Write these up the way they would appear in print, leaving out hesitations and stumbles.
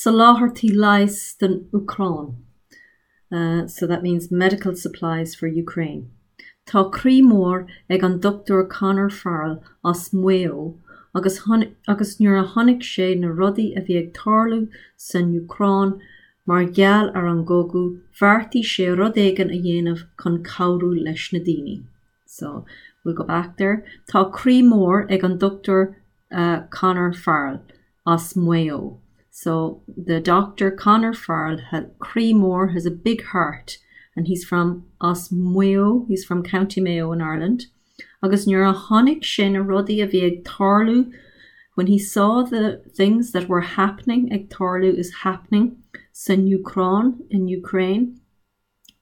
Soláthairtí leighis don Úcráin. So that means medical supplies for Ukraine. Tá croí mór ag an Dr Conor Farrell as Maigh Eo agus agus nuair a chonaic sé na rudaí a bhí ag tarlú san Úcráin mar gheall ar an gcogadh, bheartaigh sé rud éigin a dhéanamh chun cabhrú leis na daoine. So, we'll go back there. Tá croí mór ag an Dr Conor Farrell as Maigh Eo. So, the doctor Conor Farrell had croí mór has a big heart and he's from as Maigh Eo, he's from County Mayo in Ireland. Agus nuair a chonaic sé na rudaí a bhí ag tarlú when he saw the things that were happening ag tarlú is happening san Úcráin in Ukraine,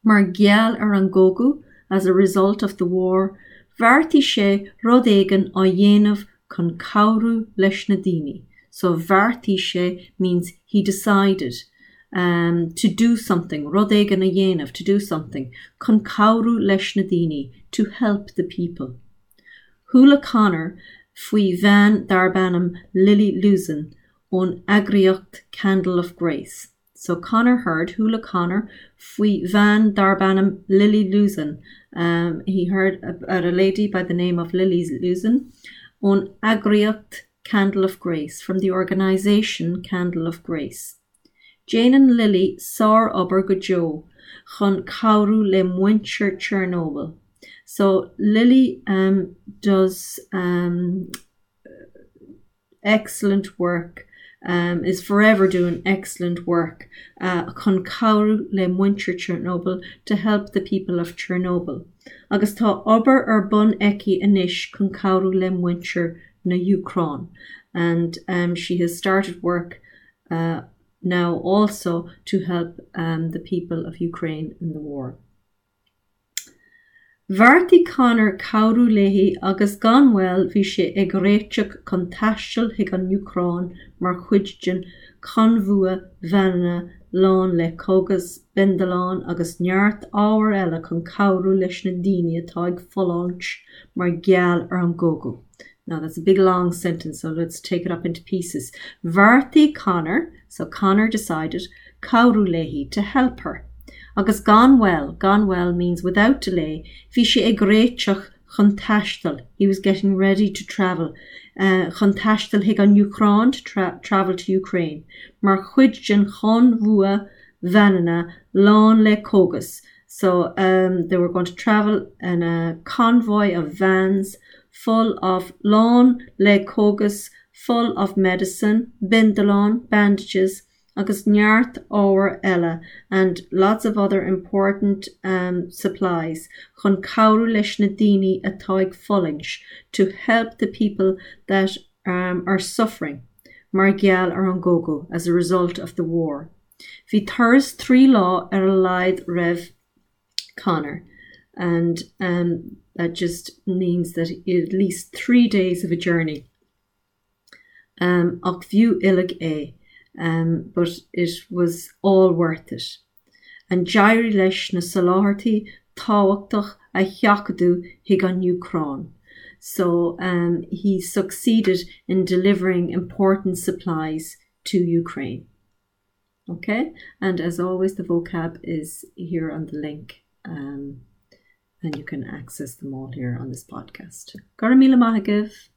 Mar gheall ar an gcogadh, as a result of the war, bheartaigh sé rud éigin á dhéanamh chun cabhrú leis na daoine. So bheartaigh sé means he decided um to do something, rud éigin a dhéanamh, to do something, chun cabhrú leis na daoine, to help the people. Chuala Conor faoi bhean darb ainm Lily Luzin ón eagraíocht Candle of Grace. So Conor heard, chuala Conor, faoi bhean darb ainm Lily Luzin, um, he heard about a lady by the name of Lily Luzin, ón eagraíocht Candle of Grace, from the organisation Candle of Grace. Déanann Lily sárobair go deo chun cabhrú le muintir Chernobyl. So Lily um, does um, excellent work um, is forever doing excellent work uh, chun cabhrú le muintir Chernobyl to help the people of Chernobyl. Agus tá obair ar bun aici anois chun cabhrú le muintir na hÚcráine. And um, she has started work uh, now also to help um, the people of Ukraine in the war. Bheartaigh Conor cabhrú léi agus gan mhoill bhí sé ag réiteach chun taisteal chuig an Úcráin mar chuid den chonbhua veaineanna lán le cógas, bindealáin agus neart ábhair eile chun cabhrú leis na daoine atá ag fulaingt mar gheall ar an gcogadh. Now that's a big long sentence so let's take it up into pieces. Bheartaigh Conor, so Conor decided, cabhrú léi, to help her. Agus gan mhoill, gan mhoill means without delay, bhí sé ag réiteach chun taisteal, he was getting ready to travel, chun taisteal chuig an Úcráin, to travel to Ukraine, mar chuid den chonbhua veaineanna lán le cógas, so um, they were going to travel in a convoy of vans full of lán le cógas, full of medicine, bindealáin, bandages, agus neart ábhair eile and lots of other important um supplies chun cabhrú leis na daoine atá ag fulaingt to help the people that um are suffering mar gheall ar an gcogadh as a result of the war. Bhí turas 3 lá ar a laghad roimh Conor and um that just means that at least 3 days of a journey. Um, ach b'fhiú uilig é, um, but it was all worth it. And d'éirigh leis na soláthairtí tábhachtach a sheachadadh chuig an Úcráin. So um, he succeeded in delivering important supplies to Ukraine. Okay, and as always the vocab is here on the link um, and you can access them all here on this podcast. Go raibh míle maith agaibh.